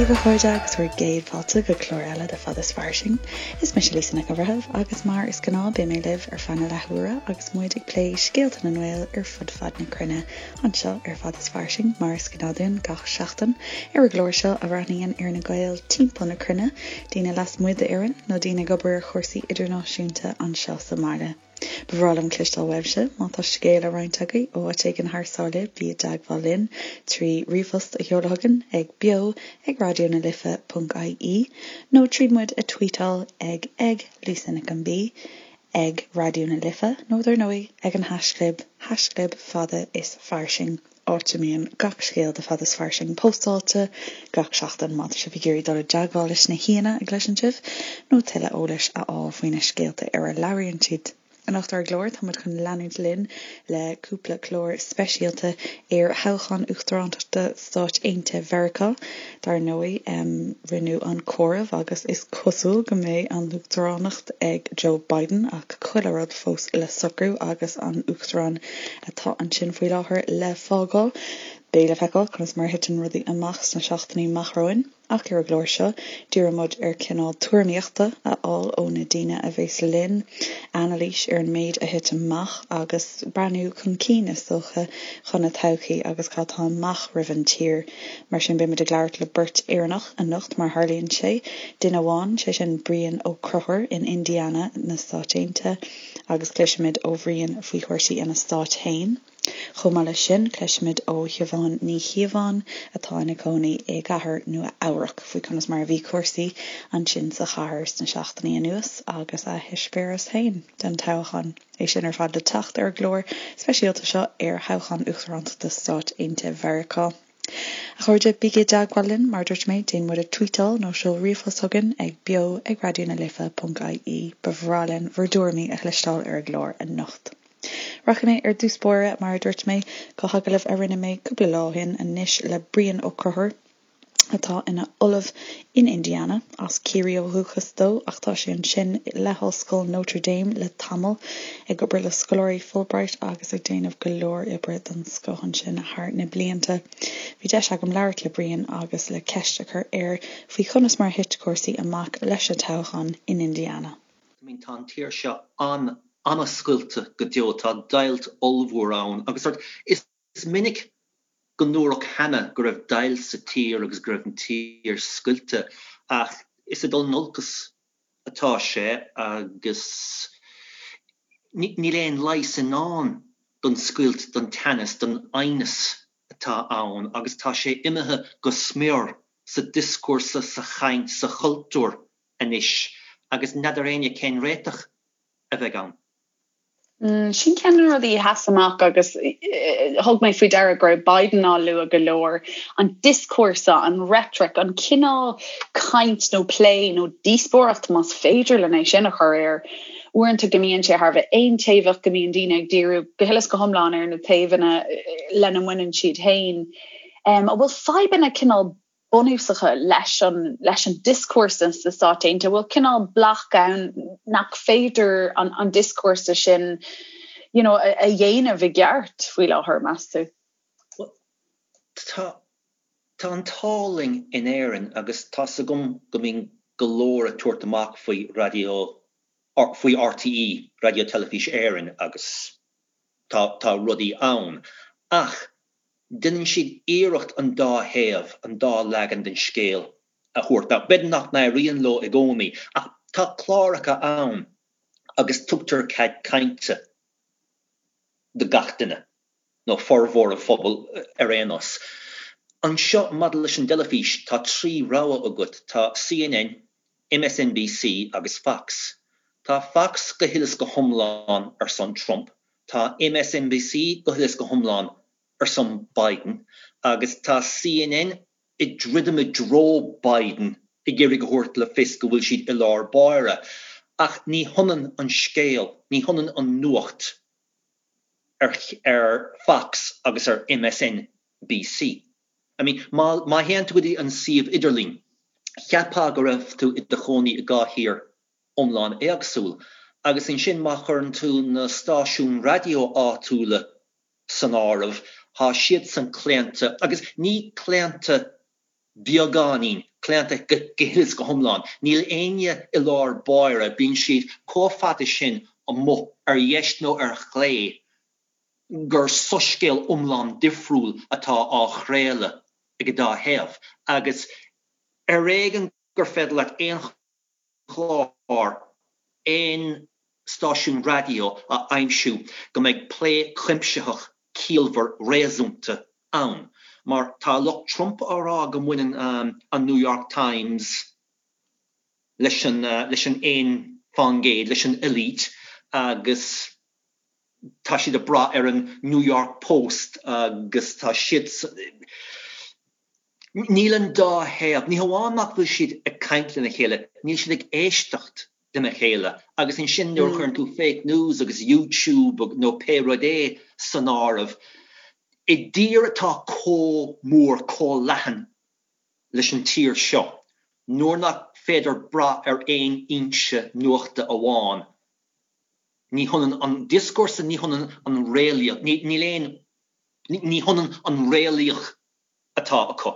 daoibh a chairde agus bhur gcéad fáilte go clár eile de Fad is Fairsing. Is mise Lisa Nic an Bhreithimh agus mar is gnáth beidh mé libh ar feadh na leathuaire agus muid ag plé scéalta na nGael ar fud fad na cruinne anseo ar Fad is Fairsing mar is gnáth dúinn gach seachtain ar an gclár seo a bhreathnaíonn ar na Gaeil timpeall na cruinne, daoine lasmuigh d'Éirinn nó daoine ag obair ar chúrsaí idirnáisiúnta anseo sa mbaile. Ba bhreá liom cloisteáil uaibhse má tá scéal le roinnt agaibh ó áit éigin thar sáile, bí i dteagmháil linn trí ríomhphost a sheoladh chugainn ag beo ag raidió na life ponc ie nó tríd muid a tweetáil ag ag Lisa Nic an B ag Raidió na Life nó dar ndóigh ag an haischlib haischlib fada is fairsing. áit a mbíonn gach scéal de Fad is Fairsing póstáilte gach seachtain má tá sibh ag iarraidh dul i dteagmháil leis na haíonna a gcloiseann sibh nó tuilleadh eolais a fháil faoi na scéalta ar a labhraíonn siad. Anocht ar an gclár tá muid chun leanúint linn le cúpla clár speisialta ar thoghchán uachtarántachta Stáit Aontaithe Mheiriceá. Dar ndóigh, rinneadh an comhaireamh agus is cosúil go mbeidh an uachtaránacht ag Joe Biden ach chuile rud fós le socrú agus an uachtarán atá ansin faoi láthair le fágáil. Beidh le feiceáil conas mar a thiteann rudaí amach sna seachtainí amach romhainn, ach ar an gclár seo, díreoidh muid ar cineál tuairimíochta a fháil ó na daoine a bheas linn, anailís ar an méid a thit amach agus breathnú chun cinn, is dócha, chun na todhchaí agus cad tá amach roimh an tír. Mar sin, beidh muid ag labhairt le beirt Éireannach anocht, mar a tharlaíonn sé. Duine amháin, sé sin Brian Ó Conchúir in Indiana na Stáit Aontaithe, agus cloisfimid ó Bhrian faoi chúrsaí ina stát féin. Chomh maith leis sin, cloisfimid ó Shiobhán Ní Chíobháin, atá ina cónaí i gcathair Nua Eabhrac, faoi conas mar a bhí cúrsaí ansin sa chathair sna seachtainí anuas agus a heispéireas féin den toghchán. É sin ar fad le teacht ar an gclár speisialta seo ar thoghchán uachtarántachta Stáit Aontaithe Mheiriceá. A chairde, bígí i dteagmháil linn, mar a dúirt mé, déan muid a tweetáil nó seol ríomhphost chugainn ag beo ag raidió na life ponc ie. Ba bhreá linn bhur dtuairimí a chloisteáil ar an gclár anocht. Rachaidh mé ar dtús báire, mar a dúirt mé, go hagallamh a rinne mé cúpla lá ó shin anois le Brian Ó Conchúir, atá ina ollamh in Indiana, as Ciarraí ó dhúchas dó ach tá sé ansin le hOllscoil Notre Dame le tamall, ag obair le scoláirí Fulbright agus ag déanamh go leor oibre den scoth ansin thar na blianta. Bhí deis agam labhairt le Brian agus le ceist a chur air faoi chonas mar a thit cúrsaí amach leis an toghchán in Indiana. I mean tá an tír seo an-an-scoilte go deo, tá deighilt ollmhór ann agus sort is minic go ndúradh cheana go raibh deighilt sa tír agus go raibh an tír scoilte ach is ag dul in olcas atá sé agus níl aon leigheas i ndán don scoilt, don teannas, don aighneas atá ann agus tá sé imithe go smior sa dioscúrsa, sa chaint, sa chultúr anois agus n'fheadar éinne cén réiteach a bheidh ann. Sin ceann de na rudaí a sheas amach agus thug mé faoi deara go raibh Biden á lua go leor, an dioscúrsa, an reitric, an cineál caint nó plé nó díospóireacht, más féidir linn é sin a chur air, uaireanta go mbíonn sé thar a bheith aontaobhach, go mbíonn daoine ag díriú go huile is go hiomlán ar na taobhanna lena mbaineann siad féin. An bhfuil fadhbanna cineál bunúsacha leis an leis an dioscúrsa sna Stáit Aontaithe, bhfuil cineál bloc ann nach féidir an an dioscúrsa sin you know, a, a dhéanamh i gceart faoi láthair, meas tú? Well, tá tá an t-ádh linn in Éirinn agus tá's agam go mbíonn go leor ag tabhairt amach faoi raidió faoi RTÉ, Raidió Teilifís Éireann agus tá tá rudaí ann ach Déanann siad iarracht an dá thaobh, an dá leagan den scéal a thabhairt. Now, b'fhéidir nach n-éiríonn leo i gcónaí, ach tá cláracha ann agus tugtar cead cainte do gach duine, nó formhór an phobail ar aon nós. Anseo, maidir leis an dteilifís, tá 3 rogha agat, tá CNN, MSNBC agus Fox. Tá Fox go huile is go hiomlán ar son Trump, tá MSNBC go huile is go hiomlán ar son Biden agus tá CNN ag druidim i dtreo Biden ag iarraidh a thabhairt le fios go bhfuil siad i lár báire. Ach ní hionann an scéal, ní hionann an nuacht ar ar Fox agus ar MSNBC. I mean, má má théann tú go dtí an suíomh idirlín, cheapfá go raibh tú i do chónaí i dhá thír iomlán éagsúil. Agus ansin má chuireann tú na stáisiúin raidió áitiúla san áireamh, tá siadsan claonta, agus ní claonta. Beagáinín claonta go huile is go hiomlán. Níl éinne i lár báire, bíonn siad chomh fada sin amuigh ar dheis nó ar chlé gur soiscéal iomlán difriúil atá á chraoladh ag an dá thaobh. Agus ar éigean gur féidir leat aon chlár, aon stáisiún raidió a aimsiú go mbeidh plé cuimsitheach ciallmhar réasúnta ann. Mar tá lucht Trump á rá go mbaineann an New York Times leis an leis an 1%, leis an elite agus tá siad ag brath ar an New York Post agus tá siad Níl an dá thaobh, ní hamháin nach bhfuil siad ag caint lena chéile, níl siad ag éisteacht lena chéile agus ansin nuair a chuireann tú fake news agus YouTube nó pé rud é san áireamh, i dtír atá chomh mór, chomh leathan leis an tír seo, nuair nach féidir brath ar aon fhoinse nuachta amháin, ní hionann an dioscúrsa, ní hionann an réalaíocht, níl aon, ní hionann an réalaíocht atá acu.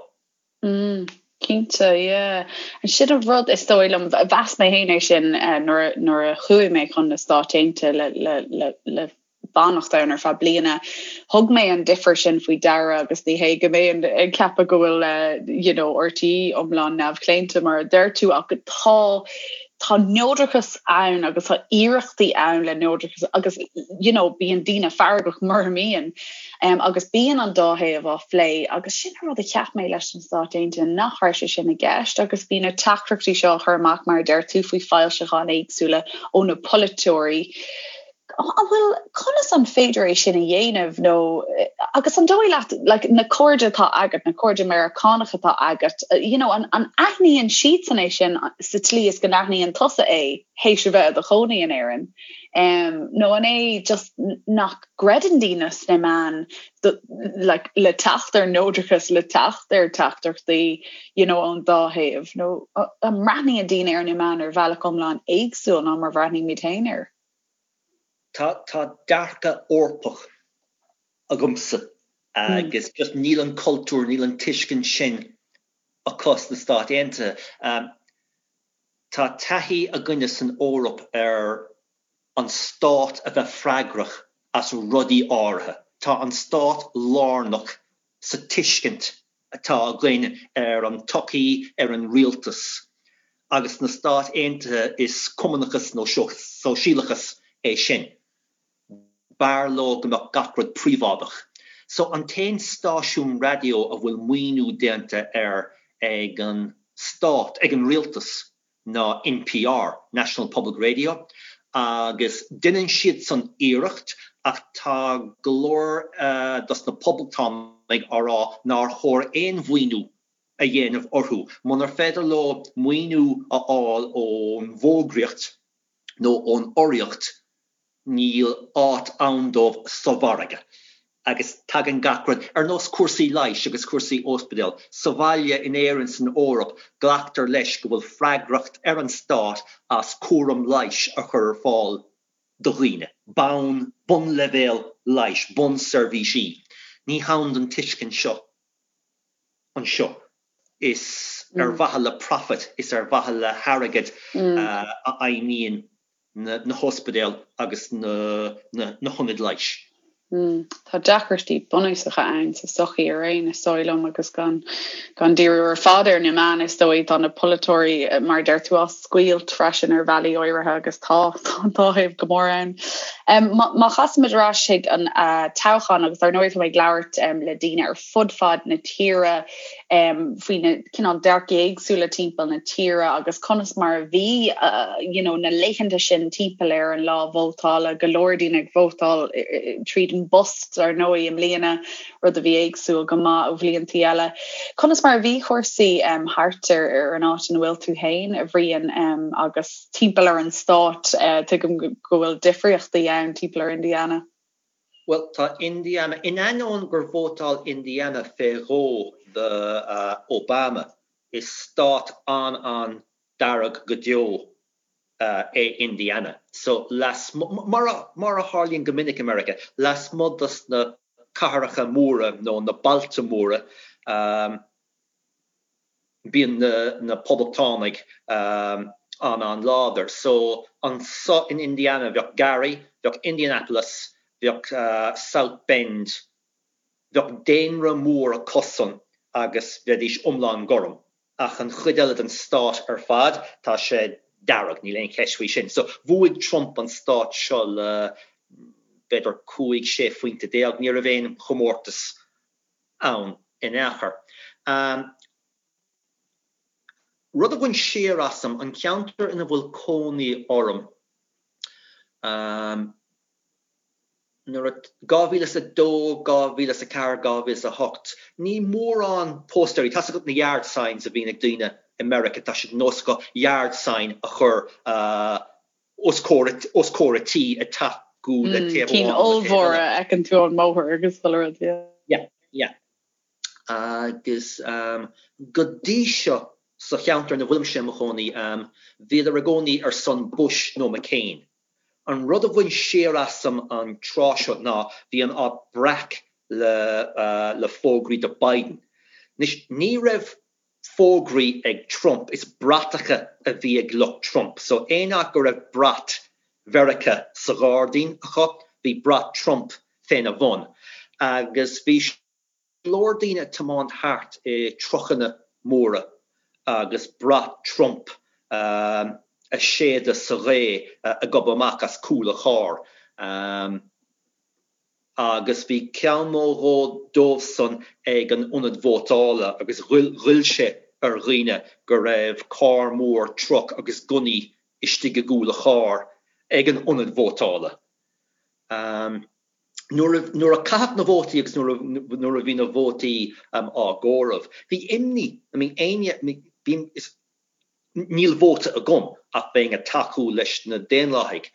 Mm, cinnte, yeah. Sin an rud is dóigh liom, mheas mé féin é sin nuair nuair a chuaigh mé chun na Stáit Aontaithe le le le le fanacht ann ar feadh bliana. Thug mé an difear sin faoi deara agus ní hé go mbeinn ag ceapadh go bhfuil you know, RTÉ iomlán neamhchlaonta mar a deir tú ach tá tá neodrachas ann agus tá iarrachtaí ann le neodrachas agus you know, bíonn daoine feargach mura mbíonn. Um, agus bíonn an dá thaobh á phlé agus sin an rud a cheap mé leis na Stáit Aontaithe nach raibh sé sin i gceist agus bhí na teachtaireachtaí seo á chur amach mar a deir tú faoi foilseacháin éagsúla ó na polaiteoirí. An bhfuil conas an féidir é sin a dhéanamh nó agus an dóigh leat like, na cairde atá agat, na cairde Meiriceánacha atá agat, you know, an, an aithníonn siadsan é sin sa tslí is go n-aithníonn tusa é théis a bheith i do chónaí in Éirinn? Um, nó an é just nach gcreideann daoine sna meáin like, le teacht ar neodrachas, le teacht ar teachtaireachtaí you know, ón dá thaobh, nó an mbreathnaíonn daoine ar na meáin ar bhealach iomlán éagsúil ná mar bhreathnaímid féin air? Tá, tá dearcadh Eorpach agamsa agus just níl an cultúr, níl an tuiscint sin acu sna Stáit Aontaithe. Tá taithí againne san Eoraip ar an stát a bheith freagrach as rudaí áirithe. Tá an stát lárnach sa tuiscint atá againn ar an tsochaí, ar an rialtas. Agus sna Stáit Aontaithe is cumannachas nó sóisialachas é sin. B'fhearr leo go mbeadh gach rud príobháideach. So an t-aon stáisiún raidió a bhfuil maoiniú déanta air ag an stát, ag an rialtas, ná NPR, National Public Radio, agus deineann siadsan iarracht ach tá go leor dos na poblachtánaigh á rá nár chóir aon mhaoiniú a dhéanamh orthu. Munar féidir leo maoiniú a fháil ón bhfógraíocht nó ón urraíocht, níl áit ann dóibh sa mhargadh agus tagann gach rud, ar nós cúrsaí leighis agus cúrsaí ospidéal, sa bhaile, in Éirinn, san Eoraip, glactar leis go bhfuil freagracht ar an stát as cúram leighis a chur ar fáil do dhaoine, bonn, bunleibhéal leighis, bunseirbhísí. Ní hann don tuiscint seo anseo. Is ar mhaithe le profit, is ar mhaithe le hairgead a fheidhmíonn na hospidéil agus na hionaid leighis. Tá deacrachtaí bunúsacha ann sa tsochaí araon, is dóigh liom, agus gan gan díriú ar fad ar na meáin, is dóigh, tá na polaiteoirí, mar a deir tú, á scoilt freisin ar bhealaí áirithe agus tá tá an dá thaobh go mór ann. Má chasaimid ar ais chuig an toghchán, agus dar ndóigh tá mé ag labhairt le daoine ar fud fad na tíre, faoi na cineál dearcaí éagsúla timpeall na tíre agus conas mar a bhí you know na laethanta sin timpeall ar an lá vótála, go leor daoine ag vótáil tríd an bpost ar ndóigh i mbliana, rud a bhí éagsúil go maith ó bhliantaí eile. Conas mar a bhí cúrsaí thart ar ar an áit ina bhfuil tú féin, a Bhriain, agus timpeall ar an stát, tuigim go bhfuil difríochtaí ann timpeall ar Indiana. Bhuel, tá Indiana, in ainneoin gur vótáil Indiana fé dhó do Obama, is stát an-an-dearg go deo é Indiana. So, lasmuigh, mar a tharlaíonn go minic i Meiriceá, lasmuigh dos na cathracha móra nó na bailte móra. Bíonn na Poblachtánaigh an-an-láidir. So anso in Indiana bheadh Gary, bheadh Indianapolis, bheadh South Bend, bheadh daonra mór acusan agus bheidís iomlán gorm. Ach an chuid eile den stát ar fad, tá sé dearg, níl aon cheist faoi sin. So bhuaigh Trump an stát seo le b'fhéidir 15, 16 phointe, ní raibh aon chomórtas ann in aon chor. Rud a bhain siar asam, an ceantar ina bhfuil cónaí orm, nuair a, 2002, 2004, 2008, ní mórán póstaeirí, tá's agat na yard signs a bhíonn ag daoine i Meiriceá, tá sé de nós acu yard sign a chur os comhair a tí ag tacú le taobh amháin nó le taobh eile. Cinn ollmhóra a fheiceann tú ón mbóthar agus chuile rud, yeah. Yeah, yeah. Agus go dtí seo sa cheantar ina bhfuilimse i mo chónaí, bhíodar i gcónaí ar son Bush nó McCain. An rud a bhain siar asam an tráth seo ná bhí an áit breac le le fógraí do Biden. Anois, ní raibh fógraí ag Trump, is bratacha a bhí ag lucht Trump. So aon áit go raibh brat Mheiriceá sa ghairdín acu, bhí brat Trump féna bhun. Agus bhí go leor daoine ag tiomáint thart i trucanna móra agus brat Trump a séideadh sa ghaoth ag gobadh amach as cúl an chairr. Agus bhí ceann nó dhó dóibhsan ag an ionad vótála agus ghoill sé ar dhaoine go raibh carr mór, truck, agus gunnaí istigh i gcúl an chairr ag an ionad vótála. Nuair a, nuair a caitheadh na vótaí agus nuair a, nuair a bhí na vótaí á gcomhaireamh, bhí imní, I mean éinne, bhí, is, Níl vóta agam ach bheinn ag tacú leis na Daonlathaigh.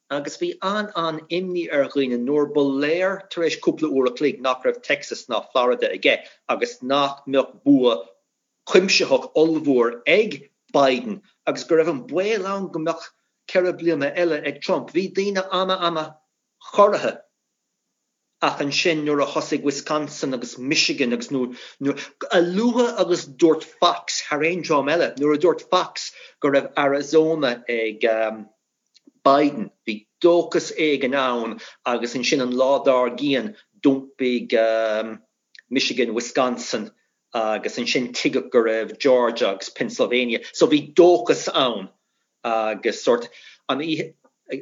Agus bhí an-an-imní ar dhaoine nuair ba léir tar éis cúpla uair a chloig nach raibh Texas ná Florida aige agus nach mbeadh bua cuimsitheach ollmhór ag Biden agus go raibh an baol ann go mbeadh 4 bliana eile ag Trump. Bhí daoine ana-ana-chorraithe. Ach ansin nuair a thosaigh Wisconsin agus Michigan agus nuair, a luaithe agus dúirt Fox, thar aon dream eile, nuair a dúirt Fox go raibh Arizona ag Biden, bhí dóchas éigin ann agus ansin an lá dár gcionn d'iompaigh Michigan, Wisconsin agus ansin tuigeadh go raibh Georgia agus Pennsylvania. So bhí dóchas ann agus sórt an oíche,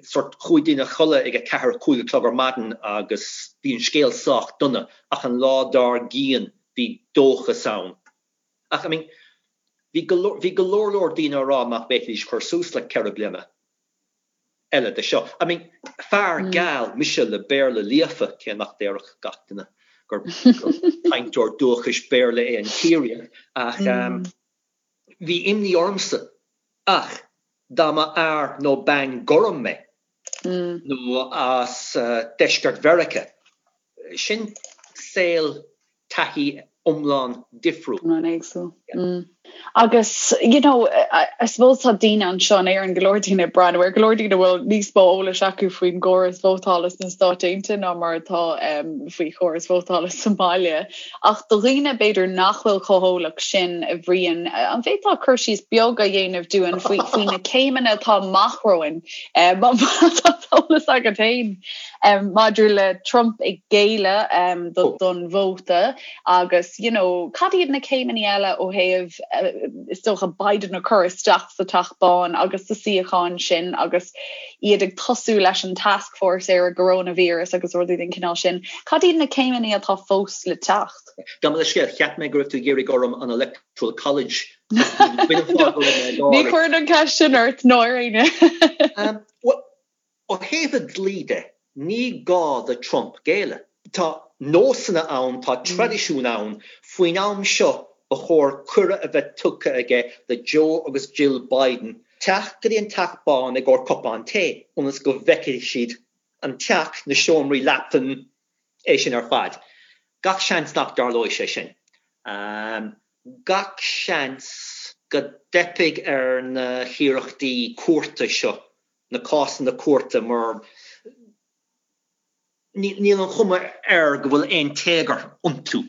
sórt chuaigh daoine a chodladh ag 4, 5 a chlog ar maidin agus bhí an scéal sách dona ach an lá dár gcionn bhí dóchas ann. Ach I mean bhí go leor, bhí go leor leor daoine á rá nach bhféadfaidís cur suas le 4 bliana. eile de seo. I mean, fear geal mise le Béarla líofa, cé nach déarfadh gach duine gur cainteoir dúchais Béarla é an Ciarraíoch, ach bhí imní ormsa. Ach dá mba fhear nó bean gorm mé, nó as deisceart Mheiriceá, sin saol taithí iomlán difriúil. Iomlán éagsúil. Agus, you know, I suppose tá daoine anseo in Éirinn, go leor daoine ag breathnú ar, go leor daoine a bhfuil níos mó eolais acu faoin gcóras vótála sna Stáit Aontaithe ná mar atá faoi chóras vótála sa mbaile. Ach do dhaoine b'fhéidir nach bhfuil chomh heolach sin, a Bhriain, an bhféadfá cur síos beag a dhéanamh dúinn faoi, faoi na céimeanna atá amach romhainn, má tá eolas agat féin? Maidir le Trump ag géilleadh don vóta agus you know cad iad na céimeanna eile ó thaobh is dócha Biden a chur isteach sa Teach Bán agus sa suíochán sin agus iad ag tosú leis an task force ar an gcoróinvíreas agus rudaí den chineál sin. Cad iad na céimeanna atá fós le teacht? Gabh mo leithscéal, cheap mé go raibh tú ag iarraidh orm an Electoral College Ní chuirfinn an cheist sin ort ná ar éinne. Bhuel, Ó thaobh an dlí de, ní gá do Trump géilleadh. Tá nósanna ann, tá traidisiún ann. Faoin am seo, ba chóir cuireadh a bheith tugtha aige do Joe agus Jill Biden teacht go dtí an Teach Bán i gcomhair cupán tae, ionas go bhfeicfidh siad an teach, na seomraí leapthan, é sin ar fad. Gach seans nach dtarlóidh sé sin. Gach seans go dteipfidh ar na hiarrachtaí cúirte seo na cásanna cúirte mar níl an chuma air go bhfuil aon téagar iontu.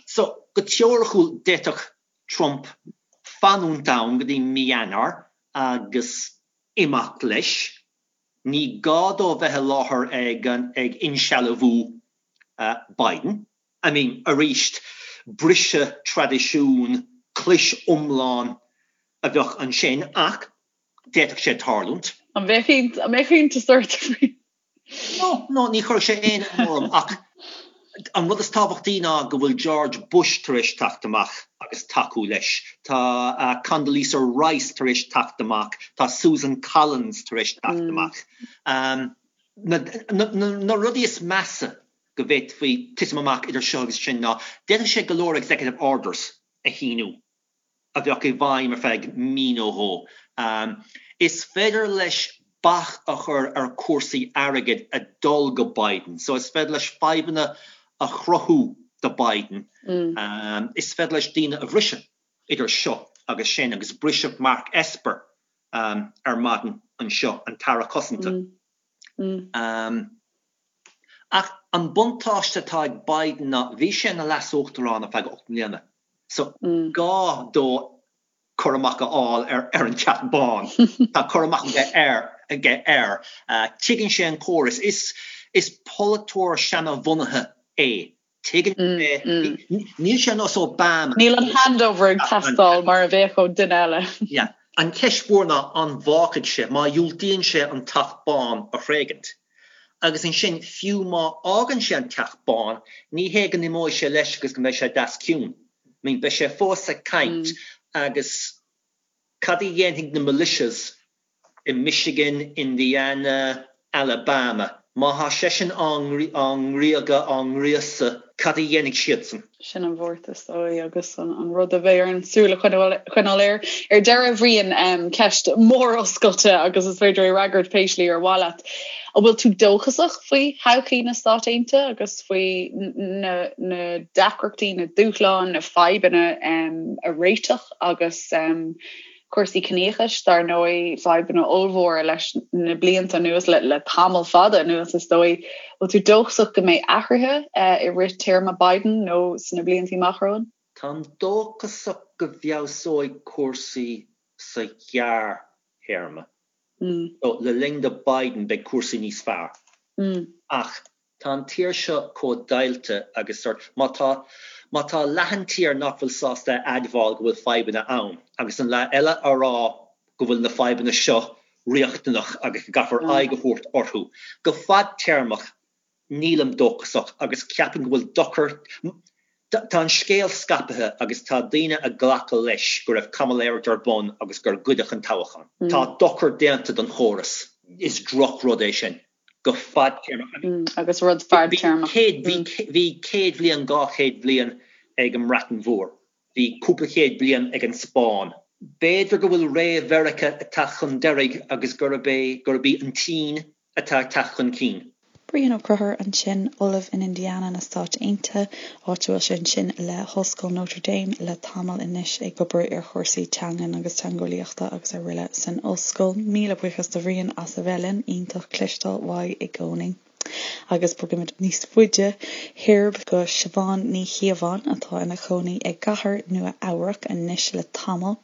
So, Go teoiriciúil d'fhéadfadh Trump fanúint ann go dtí mí Eanáir agus imeacht leis. Ní gá dó bheith i láthair ag ag insealbhú Biden. I mean, arís, briseadh traidisiún, clis iomlán a bheadh ansin ach d'fhéadfadh sé tarlúint. An mbeadh iontas ort faoi? No, no, ní chuirfeadh sé aon ionadh orm ach an rud is tábhachtaí ná go bhfuil George Bush tar éis teacht amach agus tacú leis. Tá Condoleezza Rice tar éis teacht amach, tá Susan Collins tar éis teacht amach. Na, na, na rudaí is measa go bhféadfaí titim amach idir seo agus sin ná d'fhéadfadh sé go leor executive orders a shíniú a bheadh i bhfeidhm ar feadh mí nó dhó. Is féidir leis bac a chur ar chúrsaí airgid a dul go Biden. So is féidir leis fadhbanna a chruthú do Biden. Is féidir leis daoine a bhriseadh idir seo agus sin agus briseadh Mark Esper ar maidin anseo, an tAire Cosanta. Ach an buntáiste atá ag Biden ná bhí sé ina leas-uachtarán ar feadh 8 mbliana so ní gá dó cur amach a fháil ar an Teach Bán. Tá cur amach aige air. Tuigeann sé an córas. Is polaiteoir seanabhunaithe é. Tuigeann sé, níl sé ar nós Obama. Níl an handover ag teastáil mar a bheadh ó duine eile. Yeah. An cheist mhór ná an bhfágfaidh sé, má dhiúltaíonn sé an Teach Bán a thréigint. Agus ansin, fiú má fhágann sé an Teach Bán, ní hé go n-imeoidh sé leis agus go mbeidh sé deas ciúin. I mean, beidh sé fós ag caint agus cad a dhéanfaidh na militias i Michigan, Indiana, Alabama. Má thá seisean á ngriogadh, á ngríosadh, cad a dhéanfaidh siadsan? Sin an bhuairt is dóigh agus an rud a bheidh orainn súil a choinneáil air. Ar deireadh, a Bhriain, ceist mhór oscailte agus is féidir é a fhreagairt pé slí ar mhaith leat. An bhfuil tú dóchasach faoi thodhchaí na Stát Aontaithe agus faoi na deacrachtaí, na dúshláin, na fadhbanna a réiteach agus cúrsaí ciníochais, dar ndóigh, fadhbanna ollmhóra leis na blianta anuas, le tamall fada anuas is dóigh. Bhfuil tú dóchasach go mbeidh athruithe i rith téarma Biden nó sna blianta amach romhainn? Táim dóchasach go bhfeabhsóidh cúrsaí sa ghearrthéarma. So, le linn do Biden beidh cúrsaí níos fearr. Ach Tá an tír seo chomh deighilte agus sort, má tá, má tá leath an tír nach bhfuil sásta a admháil go bhfuil fadhbanna ann agus an leath eile á rá go bhfuil na fadhbanna seo riachtanach agus go gcaithfear aghaidh a thabhairt orthu, go fadtéarmach nílim dóchasach agus ceapaim go bhfuil dochar, tá an scéal scaipthe agus tá daoine ag glacadh leis go raibh caimiléireacht ar bun agus gur goideadh an toghchán. Tá dochar déanta don chóras. Is drochrud é sin. go fadtéarmach. Agus rud fadtéarmach. Bhí 100 bhliain, 200 bhliain ag an mBreatain Mhór. Bhí cúpla chéad bliain ag an Spáinn. B'fhéidir go bhfuil ré Mheiriceá ag teacht chun deiridh agus gurb é, gurb í an tSín atá ag teacht chun cinn. Brian Ó Conchúir ansin, Ollamh in Indiana na Stáit Aontaithe, áit a bhfuil sé ansin le hOllscoil Notre Dame le tamall anois ag obair ar chúrsaí teangan agus teangeolaíochta agus araile san ollscoil. Míle buíochas do Bhrian as a bheith linn, iontach cloisteáil uaidh i gcónaí. Agus bogaimid níos faide thoir go Siobhán Ní Chíobháin atá ina cónaí i gcathair Nua Eabhrac anois le tamall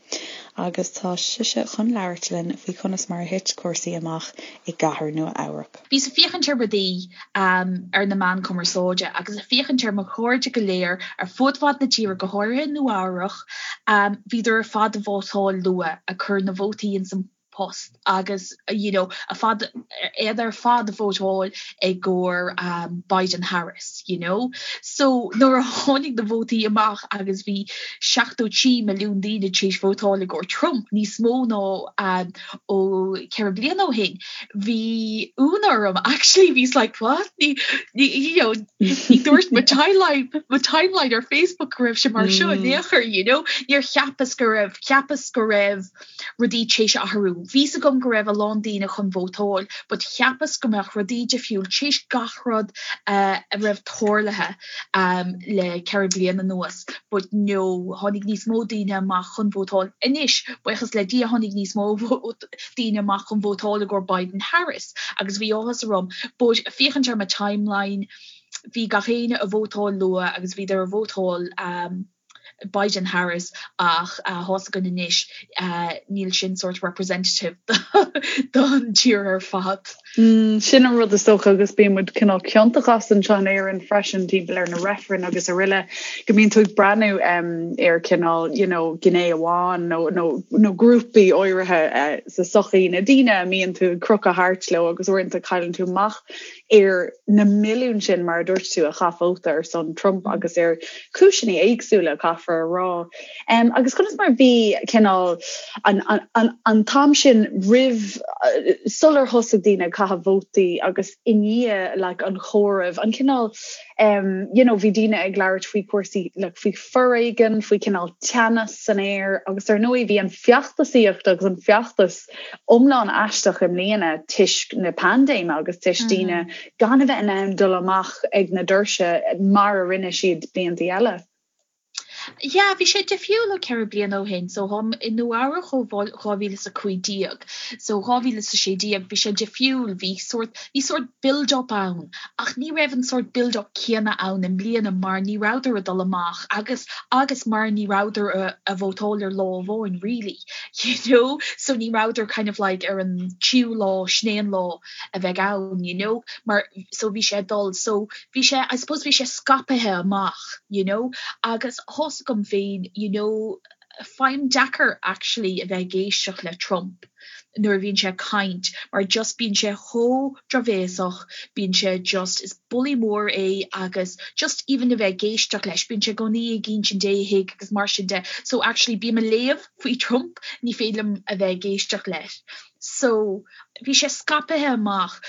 agus tá sise chun labhairt linn faoi conas mar a thit cúrsaí amach i gcathair Nua Eabhrac. Bhíos ag féachaint ar rudaí ar na meáin cumarsáide agus ag féachaint ar mo chairde go léir ar fud fad na tíre, go háirithe i Nua Eabhrach, bhíodar ar fad ag vótáil luath, ag cur na vótaí ins an post agus you know ar fad, iad ar fad ag vótáil i gcomhair Biden Harris you know. So nuair a tháinig na vótaí amach agus bhí 73 milliún daoine tar éis vótáil i gcomhair Trump, níos mó ná ó 4 bliana ó shin, bhí ionadh orm actually bhíos like what ní ní you know ní dúirt mo timeline mo timeline ar Facebook go raibh sé mar seo in aon chor you know níor cheapas go raibh cheapas go raibh rudaí tar éis athrú bhí's agam go raibh a lán daoine chun vótáil but cheapas go mbeadh rudaí difriúil tar éis gach rud uh, a raibh tarlaithe um, le 4 bliana anuas but no tháinig níos mó daoine amach chun vótáil anois buíochas le Dia tháinig níos mó daoine amach chun vótáil i gcomhair Biden Harris agus bhí áthas orm but féachaint ar mo timeline bhí gach éinne ag vótáil luath agus bhíodar ag vótáil um, Biden Harris ach tá's againn anois níl sin sort representative don tír ar fad. Sin an rud is dócha agus bíonn muid cineál ciontach as anseo in Éirinn freisin timpeall ar na reifrinn agus araile go mbíonn tú ag breathnú ar cineál you know gné amháin nó nó nó grúpaí áirithe sa sochaí na daoine a mbíonn tú ag crochadh thart leo agus uaireanta cailleann tú amach ar na milliúin sin, mar a dúirt tú, a chaith vóta ar son Trump agus ar chúiseanna éagsúla, caithfear a rá. Agus conas mar a bhí cineál an t-am sin roimh, sular thosaigh daoine ag caitheamh vótaí agus i ndiaidh like an chomhairimh, an cineál, you know, bhí daoine ag labhairt faoi chúrsaí, like faoi foréigean, faoi cineál teannas san aer agus ar ndóigh bhí an feachtasaíocht agus an feachtas iomlán aisteach i mbliana toisc na paindéime agus toisc daoine gan a bheith in ann dul amach ag na doirse mar a rinne siad blianta eile. Yeah, bhí sé difriúil ó 4 bliana ó shin. So táim i Nua Eabhrac ó 2015. So 2016 bhí sé difriúil, bhí sort, bhí sort build up ann ach ní raibh an sort build up céanna ann i mbliana mar ní rabhadar ag dul amach agus agus mar ní rabhadar a vótáil ar lá amháin really. you know so ní rabhadar kind of like ar an tríú lá sin é an lá a bheidh ann you know mar so bhí sé ag dul so bhí sé I suppose bhí sé scaipthe amach you know agus tá's agam féin you know faighim deacair actually a bheith ag éisteacht le Trump nuair a bhíonn sé ag caint mar just bíonn sé chomh drochbhéasach bíonn sé just is bully mór é agus just even a bheith ag éisteacht leis bíonn sé i gcónaí ag insint éithigh agus mar sin de so actually bím ag léamh faoi Trump ní féidir liom a bheith ag éisteacht leis so bhí sé scaipthe amach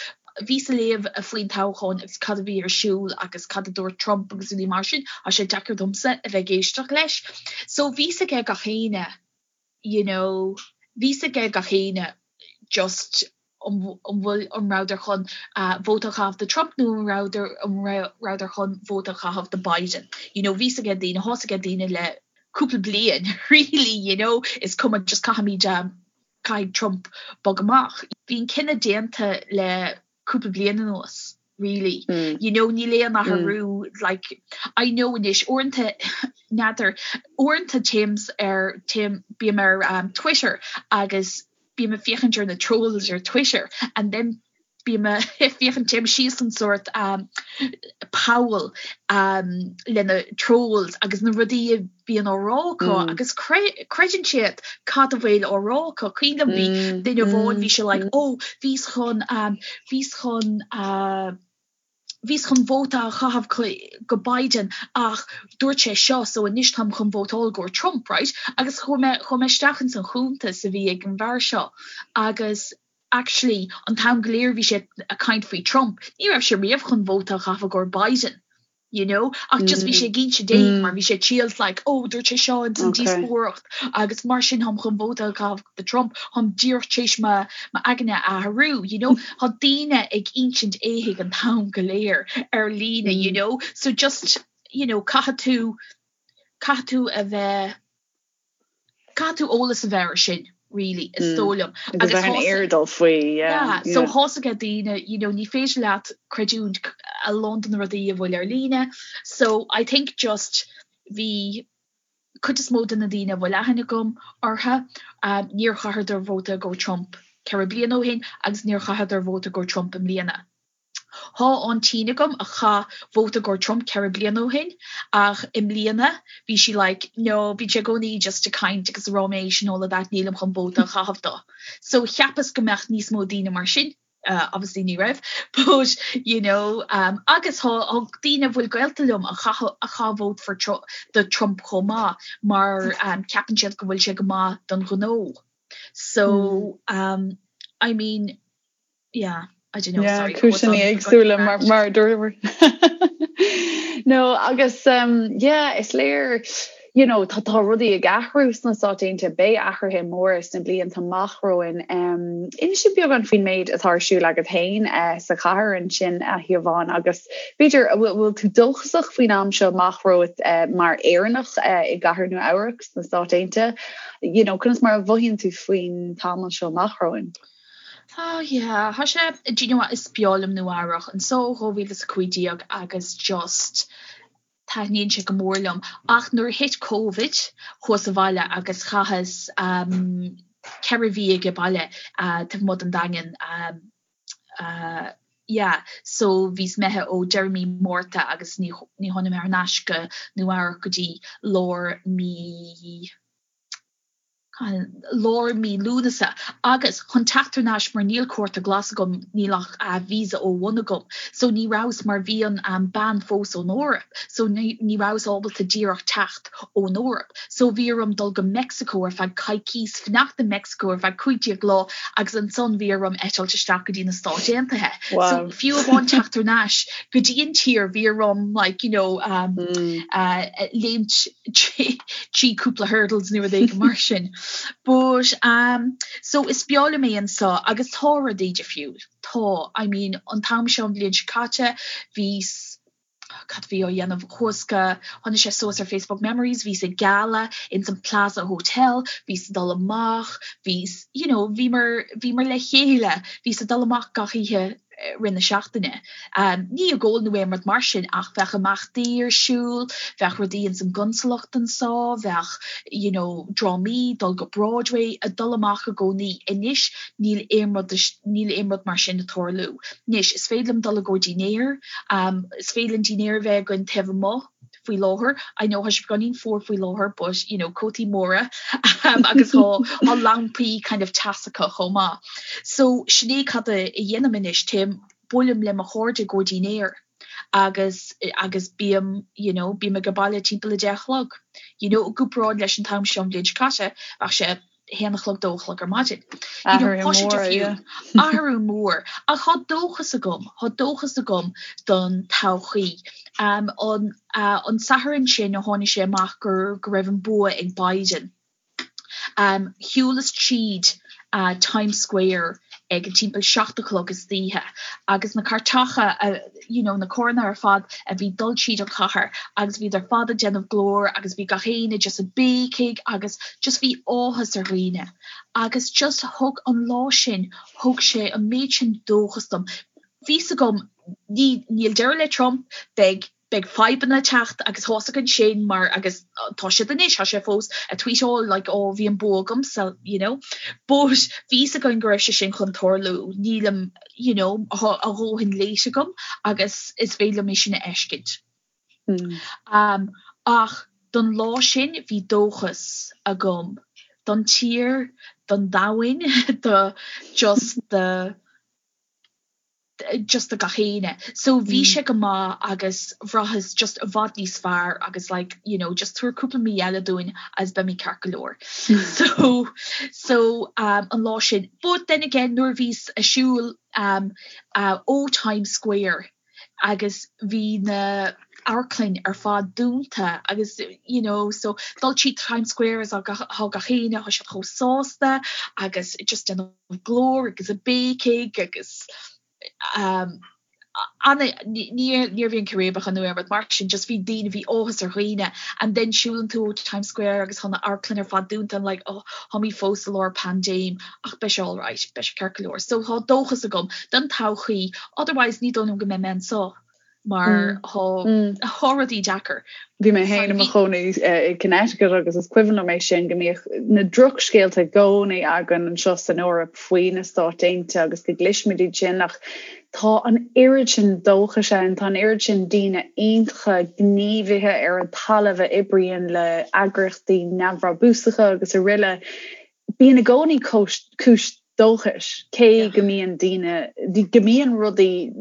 bhíos ag léamh faoin toghchán agus cad a bhí ar siúl agus cad a dúirt Trump agus rudaí mar sin tá sé deacair domsa a bheith ag éisteacht leis so bhí 's aige gach éinne you know bhí 's aige gach éinne just an bhfuil an rabhadar chun vóta a chaitheamh do Trump nó an rabhadar an rabhadar chun vóta a chaitheamh do Biden. You know bhí 's aige daoine, tá 's aige daoine le cúpla bliain really you know is cuma just caithfimid caithfidh Trump bog amach. Bhí an cinneadh déanta le cúpla bliain anuas really. You know níl aon athrú like I know anois uaireanta n'fheadar uaireanta téim ar téim bím ar um, Twitter agus bím ag féachaint ar na trolls ar Twitter and then bím ag féachaint téim síos an sort um, poll um, le na trolls agus na rudaí a bhíonn á rá acu mm. agus creideann siad cad a bhfuil á rá acu. Cuimhin liom bhí mm, duine amháin bhí sé like mm. oh bhíos chun um, bhíos chun uh, bhíos chun vóta a chaitheamh go Biden ach dúirt sé seo so anois táim chun vótáil go Trump, right? Agus chuaigh mé chuaigh mé isteach ins an chuntas a bhí ag an bhfear seo agus actually an t-am go léir bhí sé ag caint faoi Trump, ní raibh sé riamh chun vóta a chaitheamh go Biden. you know ach just bhí sé ag inse éithigh mar bhí sé triail like oh dúirt sé seo ins an díospóireacht agus mar sin táim chun vóta a chaitheamh do Trump táim díreach tar éis m'aigne a athrú you know tá daoine ag insint éithigh an t-am go léir ar líne you know so just you know caithfidh tú caithfidh tú a bheith Caithfidh tú eolas a bheith air sin really is dóigh liom. Agus bheith in airdeall faoi, yeah. Yeah, so tá's aige daoine, you know, ní féidir leat creidiúint a lán de na rudaí a bhfuil ar líne. So I think just bhí cuid is mó de na daoine a bhfuil aithne agam orthu, um, níor chaitheadar vóta go Trump 4 bliana ó shin agus níor chaitheadar vóta go Trump i mbliana. Thá aintín agam a chaith vóta go Trump 4 bliana ó shin ach i mbliana bhí sí like no bíonn sé i gcónaí just ag caint agus ag ráiméis and all of that nílim chun vóta a chaitheamh dó. So cheapas go mbeadh níos mó daoine mar sin uh, obviously ní raibh but you know um, agus thá daoine a bhfuil gaolta liom a chaith a chaith vote for Tru do Trump chomh maith mar um, ceapann siad go bhfuil sé go maith don ghnó. So um, I mean yeah, I don't know, yeah, sorry. Cúiseanna éagsúla mar mar dúramar. No agus um, yeah, is léir you know, tá tá rudaí ag athrú sna Stáit Aontaithe, beidh athruithe móra sna blianta amach romhainn. Um, inis beagán faoin méid atá ar siúl agat féin uh, sa chathair ansin a Shiobhán agus b'fhéidir bhfuil tú dóchasach faoin am seo amach romhat uh, mar Éireannach uh, i gcathair Nua Eabhrac sna Stáit Aontaithe. You know, conas mar a mhothaíonn tú faoin tamall seo amach romhainn? Oh yeah, tá sé, do you know what, is breá liom Nua Eabhrac, anseo ó 2015 agus just. Taitníonn sé go mór liom. Ach nuair a thit Covid, chuas abhaile agus chaitheas 4 mhí age baile taobh amuigh den Daingean. Yeah, so bhíos imithe ó deireadh mí Márta agus ní ní tháinig mé thar n-ais go Nua Eabhrac go dtí lár mí lár mí Lúnasa agus chun teacht thar n-ais mar níl cárta glas agam, níl ach visa O1 agam so ní rabhas mar bhí an ban fós ón Eoraip so ní ní rabhas ábalta díreach teacht ón Eoraip so bhí orm dul go Meicsiceo ar feadh coicís, fanacht i Meicsiceo ar feadh 15 lá agus ansan bhí orm eitilt isteach go dtí na Stáit Aontaithe. So fiú amháin teacht thar n-ais go dtí an tír bhí orm like you know um, uh, léimt trí cúpla hurdles nó rud éigin mar sin. But um, so is breá liom é anseo agus tá rudaí difriúil. Tá, I mean, an t-am seo an bhliain seo caite, bhíos cad bhí á dhéanamh chuas go tháinig sé suas ar Facebook Memories, bhíos ag gala ins an Plaza Hotel, bhíos ag dul amach, bhíos, you know, bhíomar, bhíomar le chéile, bhíos ag dul amach gach oíche rith na seachtaine. Ní ag ól nó aon rud mar sin ach bheadh imeachtaí ar siúl, bheadh rudaí ins an gconsalacht anso, bheadh you know drámaí, dul go Broadway, ag dul amach i gcónaí. Anois níl aon rud, níl aon rud mar sin ag tarlú. Anois is féidir liom dul i gcomhair dinnéar, is féidir linn dinnéar a bheith againn taobh amuigh, faoi láthair. I know tá sé beagáinín fuar faoi láthair but you know cótaí móra agus tá tá lampaí kind of teasacha chomh maith. So sin é cad a dhéanaim anois, téim, buailim le mo chairde i gcomhair dinnéar agus agus bím you know bím age baile timpeall a deich a chlog. You know i gcomparáid leis an t-am seo an bhliain seo caite bheadh sé haon a chlog, dó a chlog ar maidin. Athrú mór, yeah. Athrú mór. Ach tá dóchas agam, tá dóchas agam don todhchaí. Um, an, uh, an Satharn sin a tháinig sé amach gur, go raibh an bua ag Biden. Um, shiúlas tríd uh, Times Square ag timpeall 7 a chlog istoíche agus na cairteacha a, you know, na carranna ar fad a bhí dul tríd an chathair agus bhíodar ar fad ag déanamh glór agus bhí gach éinne just ag béicigh agus just bhí áthas ar dhaoine agus just thug an lá sin, thug sé an méid sin dóchas dom. Bhí 's agam, ní, níl deireadh le Trump, beidh beidh fadhbanna ag teacht agus tá's againn sin mar agus tá siad anois, tá sé fós ag tweetáil like oh bhí an bua agamsa you know but bhí 's againn go raibh sé sin chun tarlú, nílim you know tá a dhóthain léite agam agus is féidir liom é sin a fheiscint. Mm. Um, ach don lá sin bhí dóchas agam don tír, don domhain, do just the just do gach éinne. So bhí sé go maith agus bhraitheas just i bhfad níos fearr agus like you know just tabhair cúpla mí eile dúinn agus beimid ceart go leor. So so um an lá sin. But then again nuair a bhíos ag siúl um uh ó Times Square agus bhí na amharclainn ar fad dúnta agus you know so dul tríd Times Square is tá gach éinne tá siad chomh sásta agus just déanamh glór agus ag béicigh agus um, ana, ní níorbh aon círéibeacha nó aon rud mar sin, just bhí daoine, bhí áthas ar dhaoine and then siúlann tú ó Times Square agus tá na amharclann ar fad dúnta and like oh táimid fós i lár paindéim ach beidh sé alright, beidh sé ceart go leor. So tá dóchas agam don todhchaí, otherwise ní dóigh liom go mbeidh mé anseo. mar tá rudaí deacair. Bhí mé féin i mo chónaí i Connecticut agus is cuimhin liom é sin go mbíodh na drochscéalta i gcónaí againn anseo san Eoraip faoi na Stáit Aontaithe agus go gcloisimid iad sin ach tá an oiread sin dóchais ann, tá an oiread sin daoine iontacha, gníomhaithe ar an talamh a oibríonn le eagraíochtaí neamhbhrabúsacha agus araile. Bíonn i gcónaí cúis dóchais, cé go mbíonn daoine, go mbíonn rudaí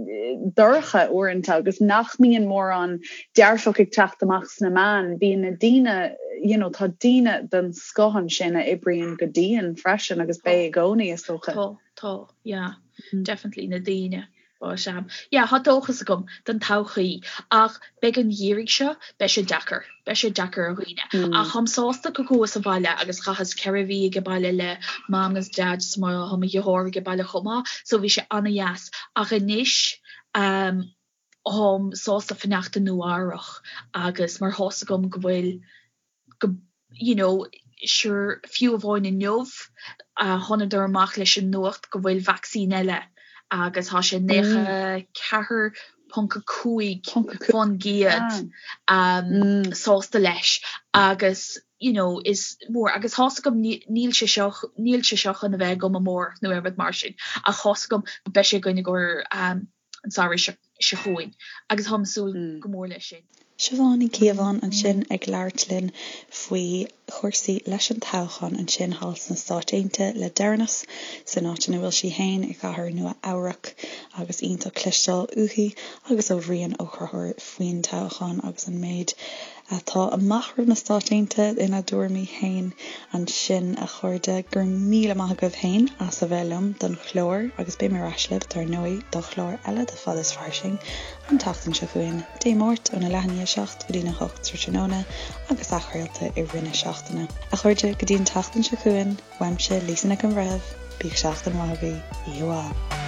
dorcha uaireanta agus nach mbíonn mórán dearfach ag teacht amach sna meáin, bíonn na daoine, you know, tá daoine den scoth ansin a oibríonn go dian freisin agus beidh i gcónaí, is dócha. Tá, tá, yeah, definitely na daoine. But um yeah tá dóchas agam don todhchaí ach beidh an geimhreadh seo, beidh sé deacair, beidh sé deacair ar dhaoine. Ach táim sásta go gcuas abhaile agus chaitheas 4 mhí age baile le mam agus dad is mo tá mo dheartháir age baile chomh maith so bhí sé ana-dheas. Ach anois um táim sásta fanacht i Nua Eabhrach agus mar tá's agam go bhfuil go you know sure fiú amháin inniu thánadar amach leis an nuacht go bhfuil vacsaín eile agus tá sé 94. 30.5% sásta leis agus you know is mór agus tá's agam níl sé seo níl sé seo chun a bheith agam amárach nó aon rud mar sin ach tá's agam beidh sé againn i gcomhair an samhradh seo chugainn agus táim ag súil go mór leis sin. Siobhán Ní Chíobháin ansin ag labhairt linn faoi chúrsaí leis an toghchán ansin thall sna Stáit Aontaithe le deireanas, san áit ina bhfuil sí féin i gcathair Nua Eabhrac agus iontach cloisteáil uaithi agus ó Bhrian Ó Conchúir faoin toghchán agus an méid atá amach roimh na Stáit Aontaithe ina dtuairimí féin ansin, a chairde. Go raibh míle maith agaibh féin as a bheith liom don chlár agus beidh mé ar ais libh, dar ndóigh, do chlár eile de Fad is Fairsing an tseachtain seo chugainn, Dé Máirt óna leath i ndiaidh a 7 go dtína 8 tráthnóna agus athchraolta i rith na seachtaine. A chairde, go dtí an tseachtain seo chugainn, uaimse, Lisa Nic an Bhreithimh, bíodh seachtain mhaith agaibh, oíche mhaith.